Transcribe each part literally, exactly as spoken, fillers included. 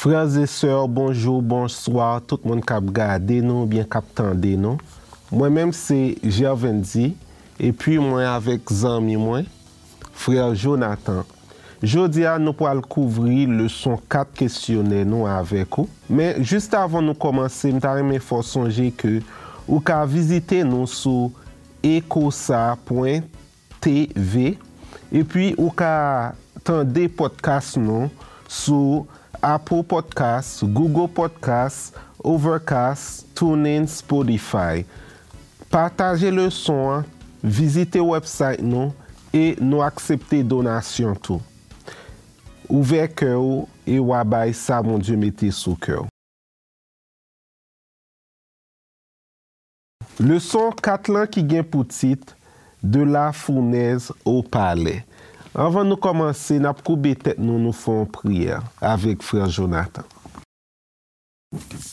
Frè e sè, bonjou, bonswa, tout moun k ap gade nou oubyen k ap tande nou. Mwen menm se Gervendy, epi mwen avèk zanmi mwen, frè Jonathan. Jodi a, nou pral kouvri leson kat kesyonè nou avèk ou. Men, jis avan nou kòmanse, m ta renmen fè w sonje ke ou ka vizite nou sou ecosa pwen T V, epi ou ka tande podcast nou sou Apple Podcast, Google Podcast, Overcast, TuneIn, Spotify. Pataje leson an, vizite website nou, e nou aksepte donasyon tou. Ouvè kè w e w a bay sa Bondye mete sou kè w. Leson kat lan ki gen pou tit De la fournaise au palais. Anvan nou kòmanse, n ap koube tèt nou, nou fè yon priyè avèk frè Jonathan.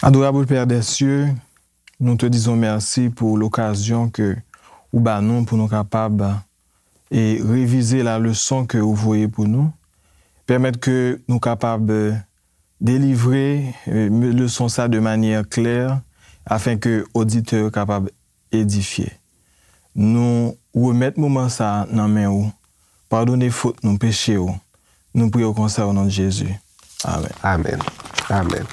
Adorable Père des cieux, nous te disons merci pour l'occasion que ou ba nou pou nou kapab e revize la leson ke ou voye pou nou. Pèmèt ke nou kapab delivre e, leson sa de manyè klè, afen ke oditè yo kapab edifye. Nou remèt moman sa nan men ou. Padone fot nou, peche yo. Nou priye w konsa o non de Jezi. Amèn. Amèn. Amèn.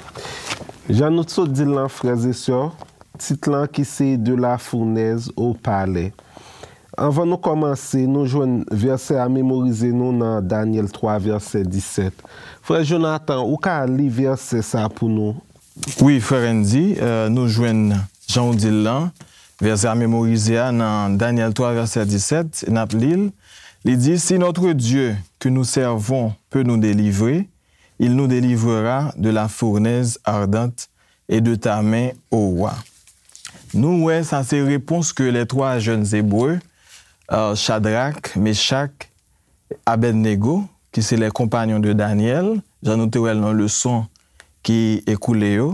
Jan nou t sot di l lan, frè e sè, tit lan ki se De la fournaise au palais. Anvan nou kòmanse, nou jwenn vèsè a memorize nou nan Danyèl twa, vèsè disèt. Frè Jonathan, ou ka li vèsè sa pou nou? Wi, frè Randy, e, nou jwenn, jan w di l lan, vèsè a memorize a nan Danyèl twa, vèsè disèt, n ap li l. Li di, Si notre Dieu que nous servons peut nous délivrer, il nous délivrera de la fournaise ardente et de ta main, ô roi. Nou wè sa se repons ke les trois jeunes Hébreux, e, Chadrak, Mechak, Abednego, ki se les compagnons de Daniel, jan nou te wè l nan leson ki ekoule yo.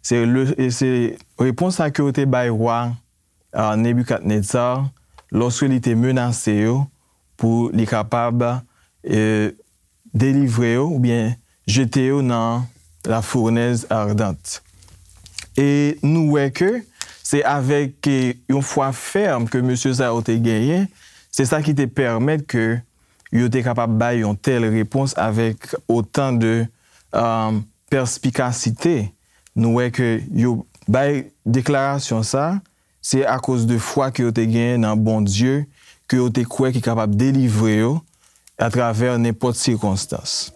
Se le, e se repons sa ke yo te bay wa, e, Nebikadnetza lòske li te menase yo pou li kapab, e, delivre yo oubyen jete yo nan la fournaise ardente. E nou wè ke se avèk, e, yon fwa fèm ke mesye sa yo te genyen, se sa ki te pèmèt ke yo te kapab bay yon tèl repons avèk otan de, e, pèspikasite. Nou wè ke yo bay deklarasyon sa, se akoz de fwa ke yo te genyen nan Bondye, ke yo te kwè ki kapab delivre yo atravè nenpòt sikonstans.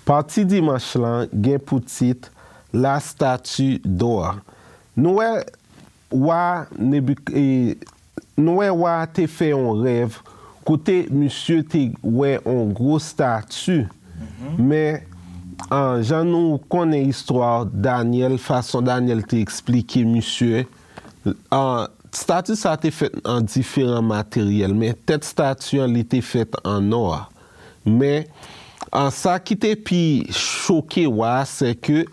Pati dimanch lan gen pou tit La statue d'or. Nou wè wa Nebik-, e, nou wè wa a te fè yon rèv kote misye te wè yon gwo stati. Men, an, jan nou konnen istwa Danyèl, fason Danyèl te eksplike misye, an, stati sa te fèt an diferan materyèl, men tèt stati an, li te fèt an nò. Men, an, sa ki te pi choke wa a, se ke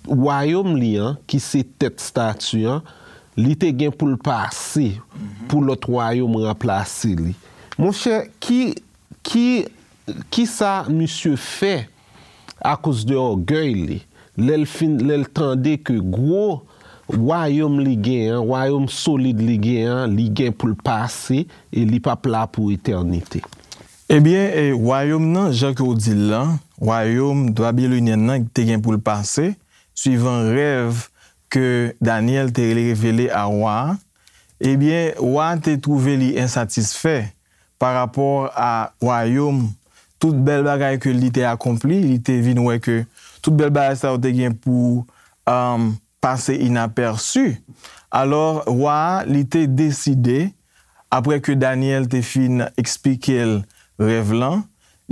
wayòm li an, ki se tèt stati an, li te gen pou l pase, pou lòt wayòm ranplase li. Monchè, ki, ki, kisa misye fè akoz de ògèy li? Lè l fin, lè l tande ke gwo wayòm li gen an, wayòm solid li gen an, li gen pou l pase e li p ap la pou etènite. Ebyen, e, wayòm nan, jan ke w di l lan, wayòm babilonyen nan te gen pou l pase, swivan rèv ke Danyèl te revele a wa a, ebyen, wa a te twouve li ensatisfè pa rapò a wayòm, tout bèl bagay ke li te akonpli, li te vin wè ke tout bèl bagay sa yo te gen pou, um, pase inapèsi. Alò, wa a, li te deside, apre ke Danyèl te fin eksplike l rèv lan,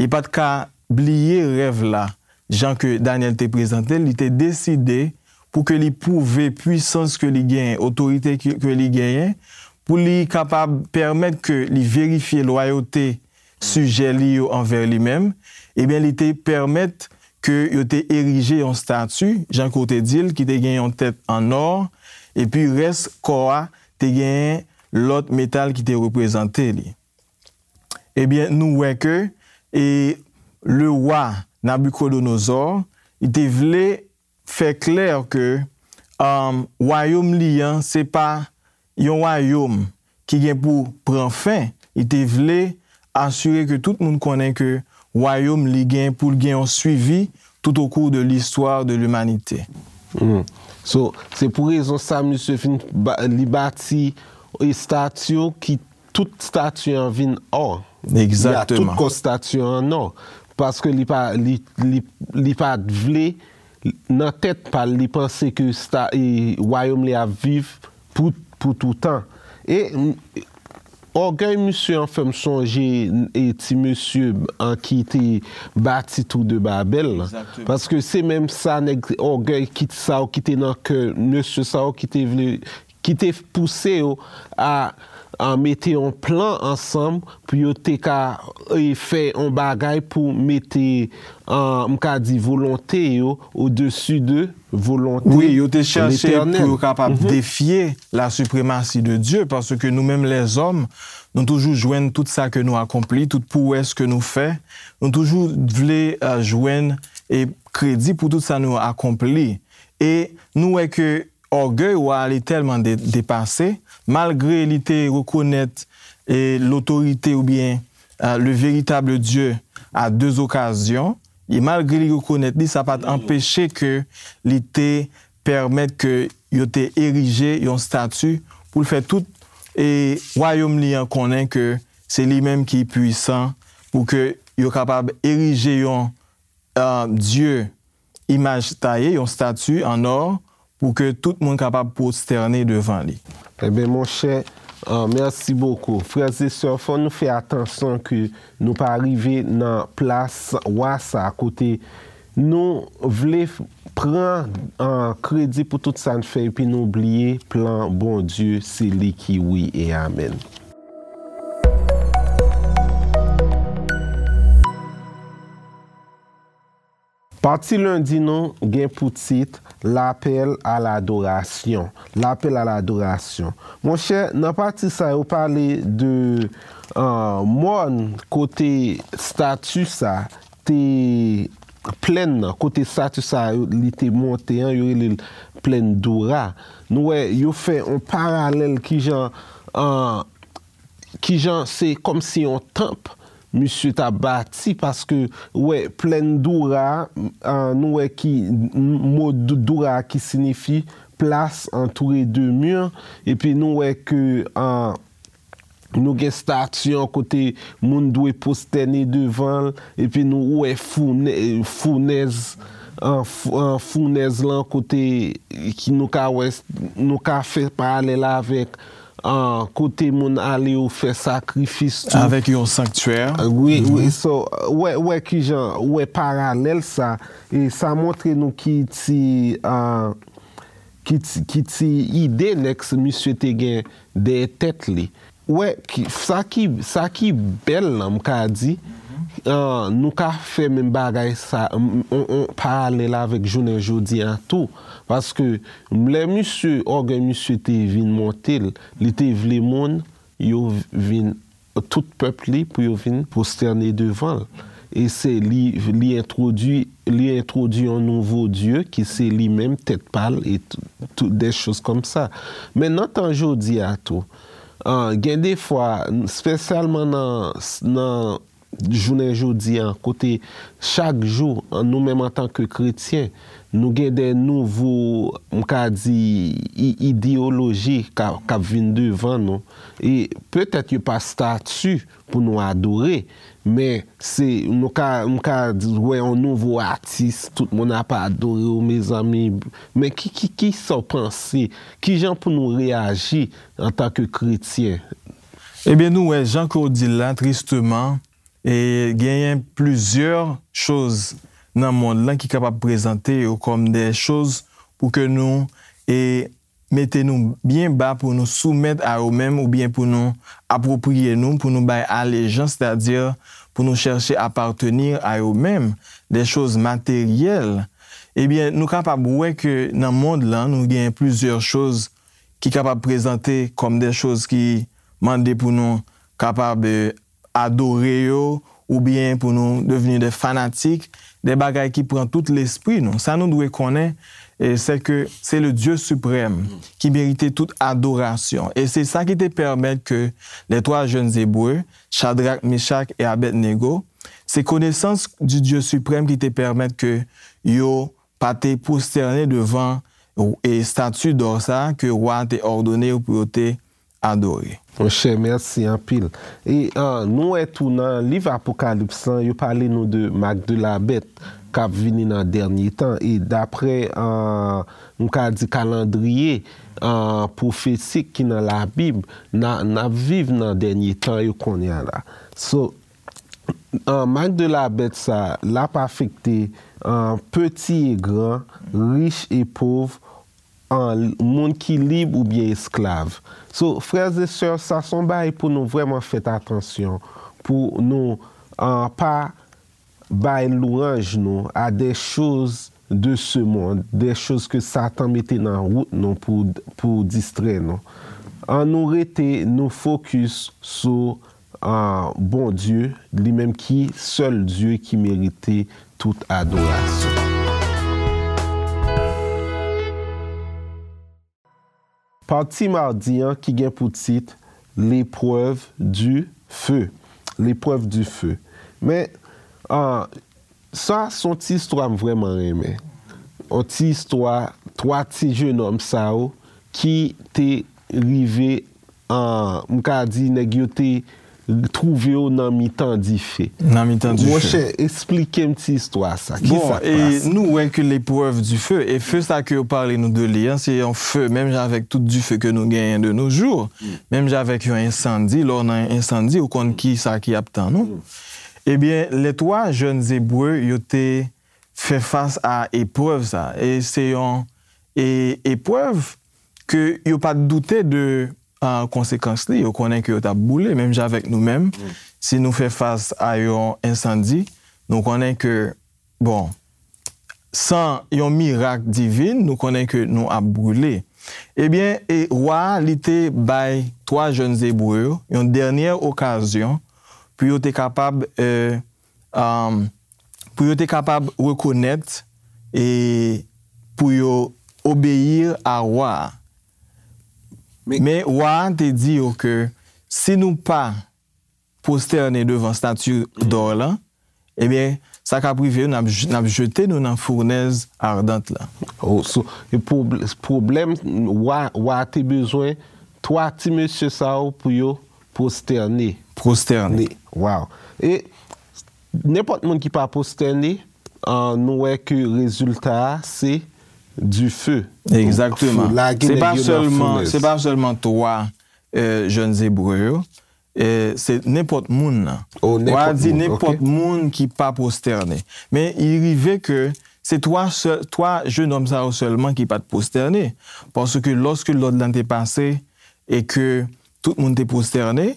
li pa t ka bliye rèv la, jan ke Danyèl te prezante l, li te deside pou ke li pwouve pwisans ke li genyen, otorite ke, ke li genyen, pou li kapab pèmèt ke li verifye lwayote sijè li yo anvè li menm, ebyen, li te pèmèt ke yo te erije yon stati, jan ke w te di l, ki te gen yon tèt an nò, epi rès kò a te genyen lòt metal ki te reprezante li. Ebyen, nou wè ke e, le wa Nabukodonozò, li te vle fè klè ke um, wayòm li an, se pa yon wayòm ki gen pou pran fen. Li te vle asire ke tout moun konnen ke wayòm li gen pou l gen yon swivi tout au cours de l'histoire de l'humanité. Hmm. So, se pou rezon sa misye fin ba, li bati estati ki tout stati an vin ò. Egzakteman. Tout kò stati an an ò. Paske li pa li li li pa t vle nan tèt pa l li panse ke sta e wayòm li ap viv pou pou toutan. E m- ògèy misye an fè m sonje e ti mesye an ki te bati tou de Babèl lan. Paske se menm sa nèg ògèy ki sa yo ki te nan kè mesye sa yo ki te vle ki te pouse yo a, a mete yon plan ansanm pou yo te ka e, fè yon bagay pou mete, a, m ka di, volonte yo odesi de volonte Letènèl. Wi, yo te chache pou yo kapab defye la suprematie de Dieu, paske nou menm lèzòm, nou toujou jwenn tout sa ke nou akonpli, tout pwowès ke nou fè, nou toujou vle a, jwenn e kredi pou tout sa nou akonpli. E nou wè ke ògèy wa a li tèlman de, depase, malgre li te rekonèt e, lotorite oubyen e, le véritable Dieu à deux occasions, e malgre li rekonèt li, sa pa t anpeche ke li te pèmèt ke yo te erije yon stati pou l fè tout e, wayòm li an konnen ke se li menm ki pwisan pou ke yo kapab erije yon a, dye imaj taye, yon stati an ò, pou ke tout moun kapab pwostène devan li. Ebyen, monchè, a, mèsi bokou. Frè e sè, fò nou fè atansyon ke nou pa rive nan plas wa sa kote nou vle pran a, kredi pou tout sa n fè epi nou bliye plan Bondye, se li ki wi e amèn. Pati lendi nou gen pou tit Lapèl a ladorasyon. Lapèl a ladorasyon. Monchè, nan pati sa yo pale de uh, mòn kote stati sa te plèn nan, kote stati sa yo li te monte an, yo rele l plèn Dora. Nou wè, yo fè yon paralèl kijan uh, kijan se kòmsi yon tanp misye t ap bati paske wè plèn Doura a, nou wè ki mo Doura a ki sinifi plas antoure de mur epi nou wè ke nou gen stati an kote moun dwe pwostène devan l epi nou wè founèz founèz lan kote ki nou ka wè nou ka fè paralèl avèk kote moun ale yo fè sakrifis tou. Avèk yon sanktyè. Wi, wi, so, wè, wè kijan, wè paralèl sa, e sa montre nou ki ti, ki ti, ki ti ide nèg misye te gen dèyè tèt li. Wè, ki, sa ki, sa ki bèl lan, m ka di, nou ka fè menm bagay sa, yon, yon paralèl avèk jounen jodi a tou. Paske Lè misye, ògèy misye te vin monte l, li te vle moun yo vin, tout pèp li pou yo vin pwostène devan l. E se li, li entwodui, li entwodui yon nouvo dye ki se li menm tèt pa l e tout, des choses comme ça. Men nan tan jodi a tou, gen de fwa, espesyalman nan, nan jounen jodi a, kote chak jou, nou menm antanke kretyen, nou gen de nouvo, m ka di, ideyoloji k ap vin devan nou. E petèt yo pa stati pou nou adore, men se, nou ka, m ka wè yon nouvo atis, tout moun ap adore w, mezanmi. Men ki, ki, ki sa w panse? Kijan pou nou reyaji antanke kretyen? Ebyen, nou wè, jan ke w di l la, tristeman, e genyen plizyè choz nan mond lan ki kapab prezante yo kòm de choz pou ke nou e mete nou byen ba, pou nou soumèt a yo menm, oubyen pou nou apwopriye nou, pou nou bay alejans, sètadi pou nou chèche apartenir a yo menm, de choz materyèl. Ebyen, nou kapab wè ke nan mond lan, nou gen plizyè choz ki kapab prezante kòm de choz ki mande pou nou kapab, eh, adore yo, oubyen pou nou devni de fanatik, de bagay ki pran tout lespri nou. Sa nou dwe konnen, eh, se ke se le Dieu suprême ki merite tout adoration. E se sa ki te pèmèt ke les trois jeunes Hébreux, Shadrach, Meshach et Abednego, se konesans du Dieu suprême ki te pèmèt ke yo pa te pwostène devan, e, estati dò sa a ke wa a te òdone yo pou yo te adore. Monchè, mèsi anpil. E, ah, nou wè tou nan liv Apokalips lan, yo pale nou de mak de la bèt k ap vini nan dènye tan. E daprè, ah, m ka di kalandriye, ah, pwofesik ki nan Labib, n a, n ap viv nan dènye tan yo kounye a la. So, ah, mak de la bèt sa, l ap afekte, ah, peti e gran, rich e pòv, ah, moun ki lib oubyen esklav. So, frères et sœurs, sa se yon bagay pou nou vrèman fè atansyon, pou nou, ah, pa bay lwanj nou a des choses de ce monde, des choses que Satan mete nan wout nou pou, pou distrè nou. An nou rete nou fokis sou, ah, Bondye, li menm ki sèl Dye ki merite tout adorasyon. Pati madi an ki gen pou tit L'épreuve du feu. L'épreuve du feu. Men, ah, sa se yon ti istwa m vrèman renmen. Yon ti istwa twa ti jenòm sa yo ki te rive, ah, m ka di nèg yo te twouve yo nan mitan dife. Nan mitan dife. Monchè, eksplike m ti istwa sa. Bon, kisa k pase? Nou wè ke l'épreuve du feu, e feu sa ke yo pale nou de li an, se yon feu, menm jan avèk tout dife ke nou genyen de nos jours, menm jan avèk yon ensandi, lè w nan ensandi, ou konn kisa ki ap tann ou. Ebyen, les trois jeunes Hébreux, yo te fè fas a eprèv sa. E se yon, e, eprèv ke yo pa t doute de, ah, konsekans li. Yo konnen ke yo t ap boule, menm jan avèk nou menm. Si nou fè fas a yon ensandi, nou konnen ke, bon, san yon mirak divin, nou konnen ke nou ap boule. Ebyen, e wa a, li te bay twa jèn Ebre yo yon dènyè okazyon pou yo te kapab, eh, um, pou yo te kapab rekonèt e pou yo obeyi a wa a. Men, men wa a te di yo ke si nou pa pwostène devan stati dò lan, ebyen, sa k ap rive yo, n ap j-, n ap jete nou nan founèz ardant lan. Oh, so, e pwob-, pwoblèm, wa, wa te bezwen twa ti mesye sa yo pou yo pwostène. Pwostène. Wow. E nenpòt moun ki pa pwostène, ah, nou wè ke rezilta a se dife. Egzakteman. Fou, lage nèg yo nan founèz. Se pa sèlman, se pa sèlman twa, eh, jèn Ebre yo, eh, se nenpòt moun nan. Oh, nenpòt moun, ok. Wa a di nenpòt moun ki pa pwostène. Men, li rive ke se twa sè-, twa jèn òm sa yo sèlman ki pa t pwostène. Paske lòske lòd lan te pase e ke tout moun te pwostène,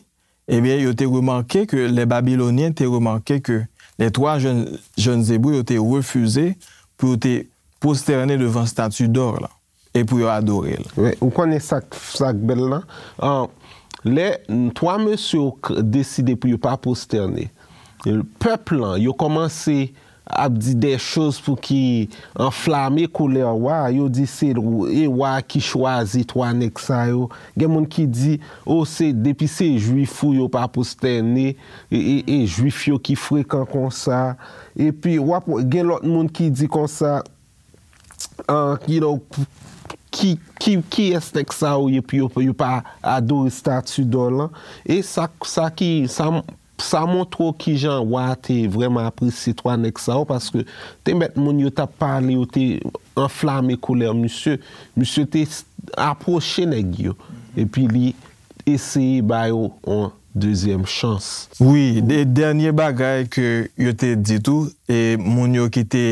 ebyen, yo te remake ke, les Babyloniens te remake ke les trois jeunes, jeunes Hébreux, yo te refize pou yo te pwostène devan stati dò lan e pou yo adore l. Wi, ou konnen sa k, sa k bèl lan? Ah, lè twa mesye yo k-, deside pou yo pa pwostène, pèp lan, yo kòmanse ap di de choz pou ki anflame kolè wa a, yo di se l-, e wa a ki chwazi twa nèg sa yo. Gen moun ki di, o, se, depi se jwif ou yo pa pwostène, e, e, e jwif yo ki frekan konsa. Epi, w ap gen lòt moun ki di konsa, ah, you know, ki, ki, kiyès nèg sa yo ye pou yo, pou yo pa adore stati dò lan? E sa, sa ki, sa, sa montre w kijan wa a te vrèman apresye twa nèg sa yo, paske te mèt moun yo t ap pale, yo te anflame kolè misye. Misye te s-, apwoche nèg yo, epi li eseye ba yo yon dezyèm chans. Wi, de, dènye bagay ke yo te di tou, e moun yo ki te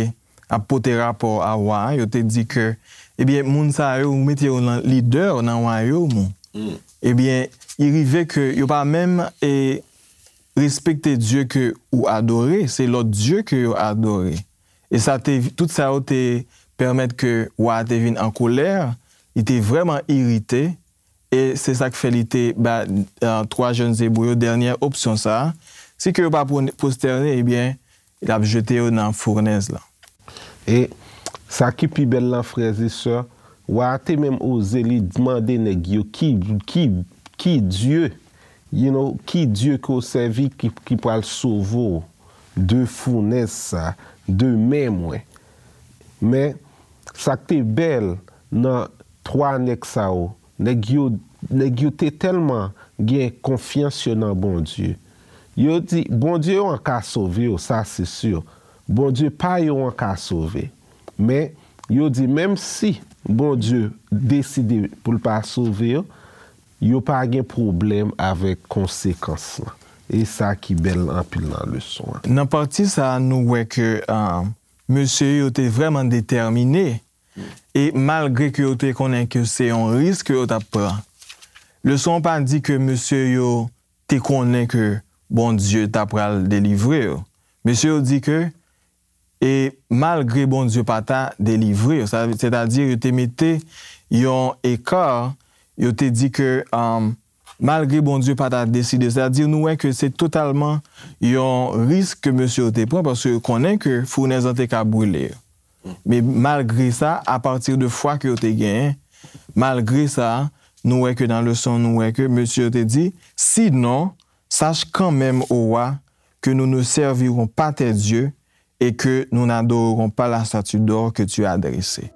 ap pote rapò a wa a, yo te di ke, ebyen, moun sa yo, ou mete yo nan lidè nan wayòm ou. Ebyen, li rive ke yo pa menm, e, respekte Dye ke ou adore, se lòt dye ke yo adore. E sa te, tout sa yo te pèmèt ke wa a te vin an kolè, li te vrèman irite, e se sa k fè li te ba, eh, twa jèn zebrou yo dènyè opsyon sa a. Si ke yo pa pwone-, pwostène, ebyen, l ap jete yo nan founèz lan. E sa ki pi bèl lan, frè e sè, wa a te menm oze li mande nèg yo ki, ki, ki Dye, you know, ki Dye ke w sèvi ki, ki pral sove w de founèz sa, de men mwen. Men, sa k te bèl nan twa nèg sa yo, nèg yo, nèg yo te tèlman gen konfyans yo nan Bondye. Yo di, Bondye yo an ka sove yo, sa se si. Bondye pa yo an ka sove. Men, yo di, menm si Bondye deside pou l pa sove yo, yo pa gen pwoblèm avèk konsekans lan. E sa ki bèl anpil nan leson an. Nan pati sa a, nou wè ke, ah, mesye yo te vrèman detèmine. E malgre ke yo te konnen ke se yon risk ke yo t ap pran, leson an pa di ke mesye yo te konnen ke Bondye ta pral delivre yo. Mesye yo di ke, e malgre Bondye pa ta delivre yo, sa, sètadi yo te mete yon eka, yo te di ke, um, malgre Bondye pa ta deside, sètadi nou wè ke se totalman yon risk ke mesye yo te pran, paske yo konnen ke founèz lan te ka brile yo. Men malgre sa, apati de fwa ke yo te genyen, malgre sa, nou wè ke nan leson, nou wè ke mesye yo te di, sinon, sache quand même, ô roi, que nous ne servirons pas tes dieux et que nous n'adorerons pas la statue d'or que tu as dressée.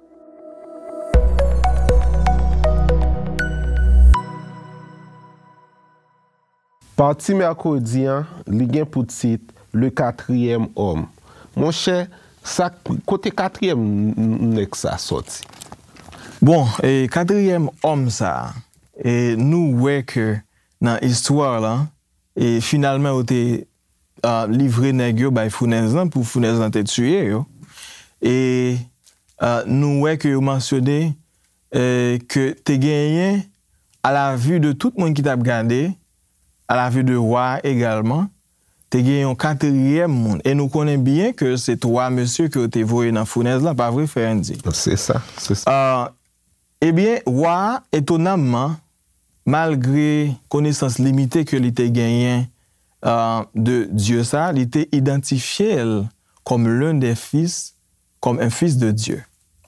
Pati mèkredi an, li gen pou tit Le quatrième homme. Monchè, sa, kote katriyèm n-, n-, nèg sa sòti? Bon, e katriyèm òm sa, e nou wè ke nan istwa la, e finalman yo te, ah, livre nèg yo bay founèz lan pou founèz lan te tiye yo. E, ah, nou wè ke yo mansyone, eh, ke te genyen, à la vue de tout moun ki t ap gade, à la vue de wa a egalman, te gen yon katriyèm moun. E nou konnen byen ke se twa mesye ke yo te voye nan founèz lan, pa vre, frè Andy? Se sa, se sa. Ah, ebyen, wa a, etonamman, malgre konesans limite ke li te genyen, ah, de Dye sa, li te idantifye l comme l'un des fils, comme un fils de Dieu.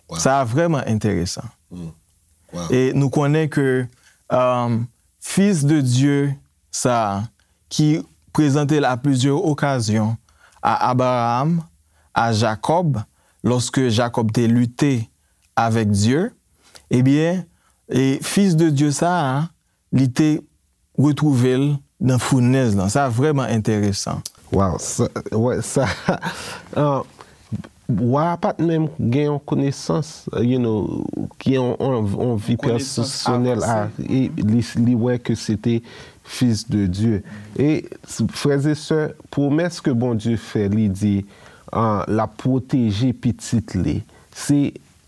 Wow. Sa a vrèman enteresan. Mm. Wow. E nou konnen ke, um, fils de Dieu sa a, ki prezante l à plusieurs occasions à Abraham, à Jacob, lorsque Jacob te lite avec Dieu, ebyen, e fils de Dieu sa a, li te retwouve l nan founèz lan. Sa vrèman enteresan. Wow, sa, wè, sa, ah, wa a pa t menm gen yon konesans, you know, ki yon, yon, yon vi pèsonèl a, e li, li wè ke se te Fils de Dieu. E, frè e sè, pwomès ke Bondye fè, li di, ah, l ap pwoteje pitit li. Se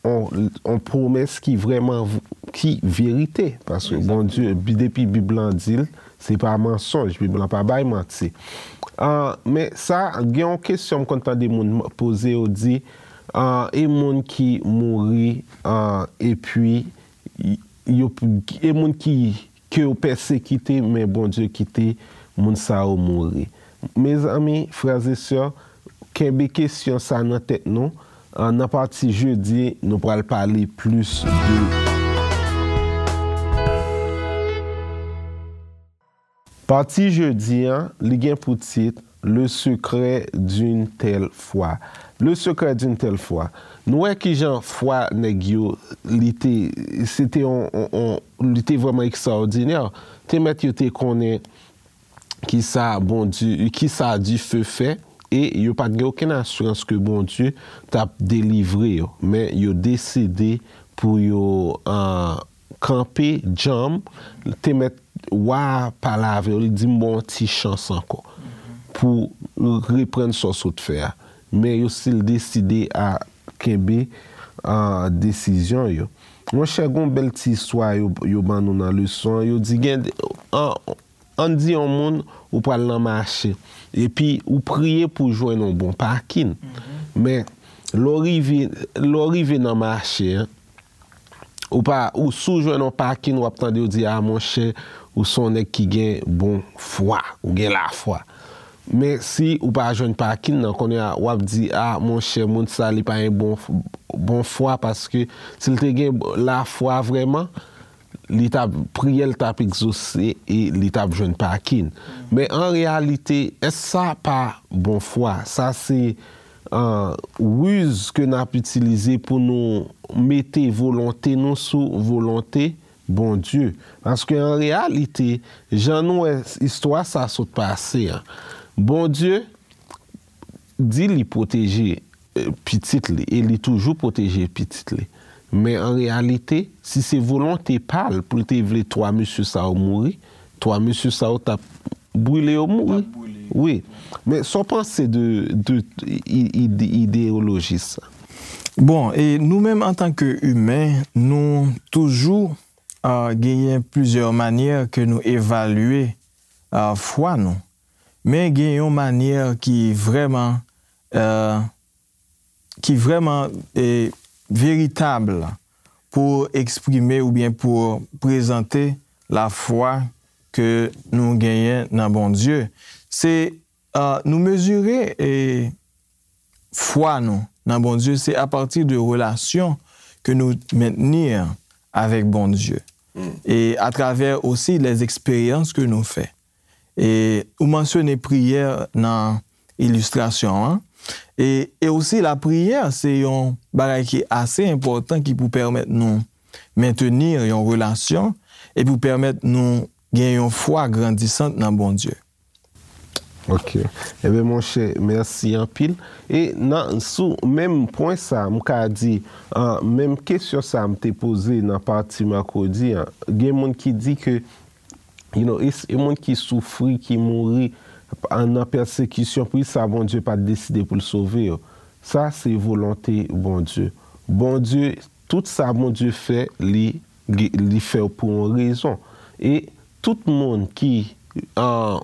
yon, yon pwomès ki vrèman v-, ki verite, paske Bondye, bi-, depi Bib lan di l, se pa mansonj, Bib lan pa bay manti. Ah, men sa, gen yon kesyon m konn tande moun poze, yo di, ah, e moun ki mouri, ah, epi y-, yo, e moun ki, ke yo pèsekite, men Bondye kite moun sa yo mouri. Mezanmi, frè e sè, kenbe kesyon sa nan tèt nou. Ah, nan pati jedi, nou pral pale plis de. Pati jedi an, li gen pou tit Le secret d'une telle foi. Le secret d'une telle foi. Nou wè kijan fwa nèg yo, li te, se te on, on, on, li te vrèman ekstraòdinè. Te mèt yo te konnen kisa Bondye, kisa dife fè, e yo pa t gen okenn asirans ke Bondye t ap delivre yo. Men yo deside pou yo, ah, kanpe djanm, te mèt wa a pale avè yo, li di, "M ba w yon ti chans ankò pou reprann sa w sot fè a." Men yo still deside a kenbe, ah, desizyon yo. Monchè, gon bèl ti istwa yo, yo ban nou nan leson an. Yo di gen, ah, ann di yon moun ou pral nan mache, epi ou priye pou jwenn yon bon pakin. Men, lè w rive, lè w rive nan mache an, Ou pa, ou si w jwenn yon pakin, w ap tande yo di, "A, monchè, ou se yon nèg ki gen bon fwa, ou gen lafwa." Men si ou pa jwenn pakin nan, kounye a, w ap di, "A, monchè, moun sa, li pa gen bon, bon fwa, paske si l te gen lafwa vrèman, li t ap, priyè l t ap egzose e li t ap jwenn pakin." Men an reyalite, èske sa pa bon fwa? Sa se, euh, riz ke n ap itilize pou nou mete volonte nou sou volonte Bondye. Paske an reyalite, jan nou wè istwa sa sot pase an, Bondye di li pwoteje, eh, pitit li, e li toujou pwoteje pitit li. Men an reyalite, si se volonte pa l pou l te vle twa mesye sa yo mouri, twa mesye sa yo t ap brile yo mouri. Wi. Men sa w panse de, de i- ide- ideyoloji sa? Bon, e nou menm antanke imen, nou toujou, ah, genyen plizyè manyè ke nou evalye, ah, fwa nou. Men gen yon manyè ki vrèman, eh, ki vrèman, eh, veritab pou eksprime oubyen pou prezante lafwa ke nou genyen nan Bondye. Se, eh, nou mezire, eh, fwa nou nan Bondye, se apati de relasyon ke nou mentni avèk Bondye. E atravè osi lè eksperyans ke nou fè. E ou mansyone priyè nan ilistrasyon an. E, e osi lapriyè, se yon bagay ki ase enpòtan ki pou pèmèt nou mentni yon relasyon e pou pèmèt nou gen yon fwa grandisant nan Bondye. Ok. Ebyen, monchè, mèsi anpil. E nan, sou menm pwen sa, m ka di, ah, menm kesyon sa m te poze nan pati mèkredi an, gen moun ki di ke, you know, e, e moun ki soufri, ki mouri, ah, nan pèsekisyon, poukisa Bondye pa t deside pou l sove yo? Sa se volonte Bondye. Bondye, tout sa Bondye fè, li, li fè pou yon rezon. E tout moun ki, ah,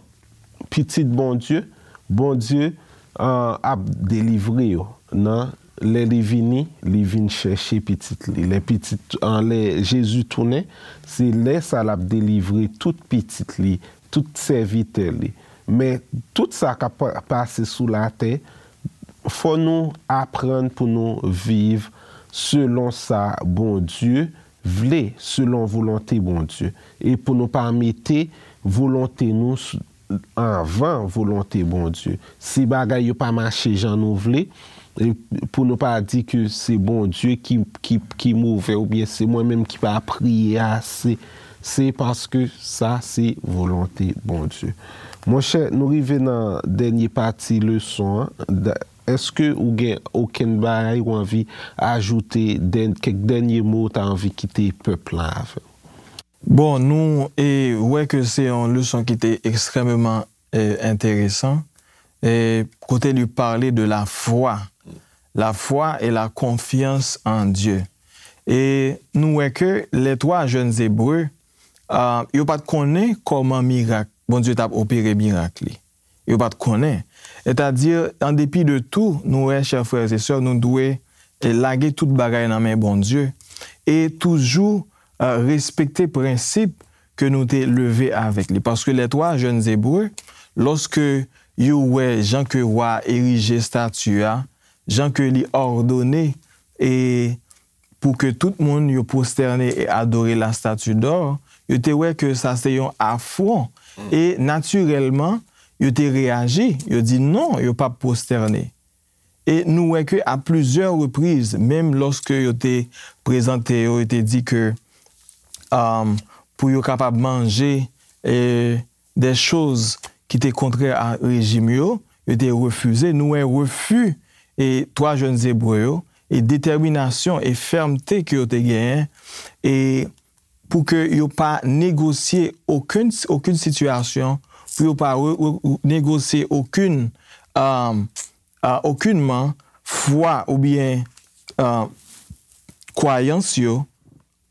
pitit Bondye, Bondye, ah, ap delivre yo. Nan lè li vini, li vin chèche pitit li. Lè pitit, ah, lè Jezi tounen, se lè sa l ap delivre tout pitit li, tout sèvitè li. Men tout sa k ap pa- pase sou latè, fò nou aprann pou nou viv selon sa Bondye vle, selon volonte Bondye. E pou nou pa mete volonte nou s- anvan volonte Bondye. Si bagay yo pa mache jan nou vle, e pou nou pa di ke se Bondye ki, ki, ki move oubyen se mwen menm ki pa priye ase, se paske sa se volonte Bondye. Monchè, nou rive nan dènye pati leson an. Da- Èske ou gen okenn bagay ou anvi ajoute, dèn- kèk dènye mo ou ta anvi kite pèp la avè? Bon, nou e, wè ke se yon leson ki te ekstrèmeman, e, enteresan, e, kote li pale de la foi. La foi et la confiance en Dieu. E nou wè ke les trois jeunes Hébreux, ah, yo pa t konnen kòman mirak, Bondye t ap opere mirak li. Yo pa t konnen. Sètadi, an depi de tou, nou wè, chè frè e sè, nou dwe, e, lage tout bagay nan men Bondye e toujou, e, respekte prensip ke nou te leve avèk li. Paske les trois jeunes Hébreux, lòske yo wè jan ke wa a erije estati a, jan ke li òdone e pou ke tout moun yo pwostène e adore la statue d'or, yo te wè ke sa se yon afwon. E natirèlman, yo te reyaji, yo di non, yo p ap pwostène. E nou wè ke a plizyè repriz, menm lòske yo te prezante yo, yo te di ke, um, pou yo kapab manje, e, de choz ki te kontrè a rejim yo, yo te refize. Nou wè refi e twa jèn Ebre yo, e detèminasyon e fèmte ke yo te genyen, e pou ke yo pa negosye okenn, okenn sitiyasyon, pou yo pa re-, re-, negosye okenn, um, a, okenman fwa oubyen, a, kwayans yo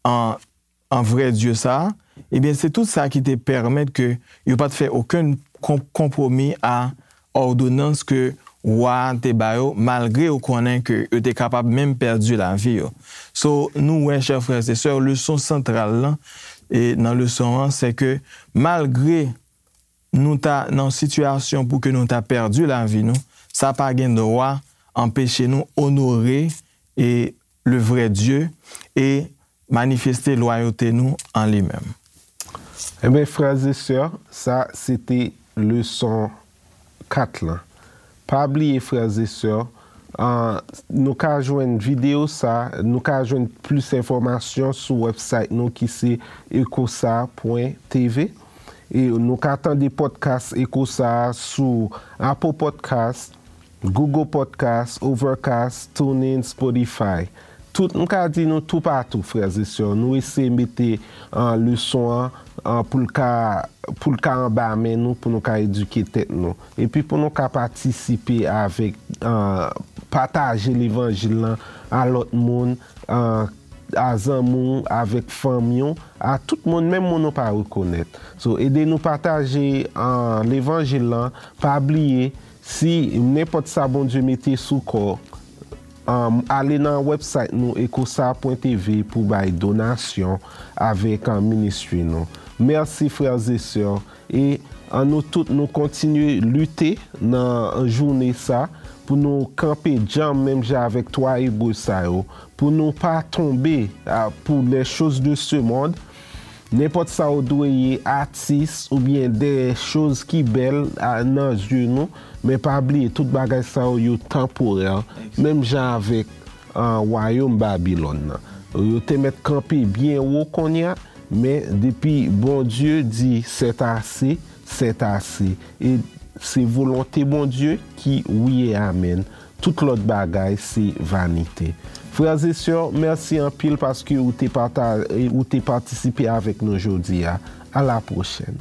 an, an vrè Dye sa a, ebyen, se tout sa ki te pèmèt ke yo pa t fè okenn kon-, konpwomi a òdonans ke wa a te ba yo, malgre yo konnen ke yo te kapab menm pèdi lavi yo. So, nou wè, chè frè e sè, leson santral lan, e nan leson an, se ke malgre nou ta nan yon sitiyasyon pou ke nou ta pèdi lavi nou, sa pa gen dwa anpeche nou onore e le vrè Dye e manifeste lwayote nou an li menm. Ebyen, frè e sè, sa se te leson kat lan. Pa bliye, frè e sè, uh, nou ka jwenn videyo sa, nou ka jwenn plis enfòmasyon sou website nou ki se ecosa pwen tv. E nou ka tande podcast Ecosa sou Apple Podcast, Google Podcast, Overcast, TuneIn, Spotify. Tout, m ka di nou toupatou, frè e sè, nou eseye mete uh, leson an uh, pou l ka pou l ka anba men nou, pou nou ka edike tèt nou. Epi pou nou ka patisipe avèk uh, pataje levanjil lan a lòt moun, uh, a zanmi w, avèk fanmi w, a tout moun, menm moun ou pa rekonèt. So, ede nou pataje uh, levanjil lan, pa bliye, si nenpòt sa Bondye mete sou kò, um, ale nan website nou, ecosa pwen tv, pou bay donasyon avèk uh, ministry nou. Mèsi, frè e sè. E annou tout nou kontinye lite nan jounen sa pou nou kanpe djanm menm jan avèk twa Ebre sa yo, pou nou pa tonbe uh, pour les choses de ce monde. Nenpòt sa ou dwe ye, atis oubyen de choz ki bèl nan zye nou, men pa bliye tout bagay sa yo, yo tanporè, menm jan avèk uh, wayòm Babilòn nan. Yo te mèt kanpe byen wo kounye a, men depi Bondye di c'est assez, c'est assez. E se volonte Bondye ki wi e amèn. Tout lòt bagay se vanite. Frè e sè, mèsi anpil paske ou te, pata, ou te patisipe avèk nou jodi a. A la pwochèn.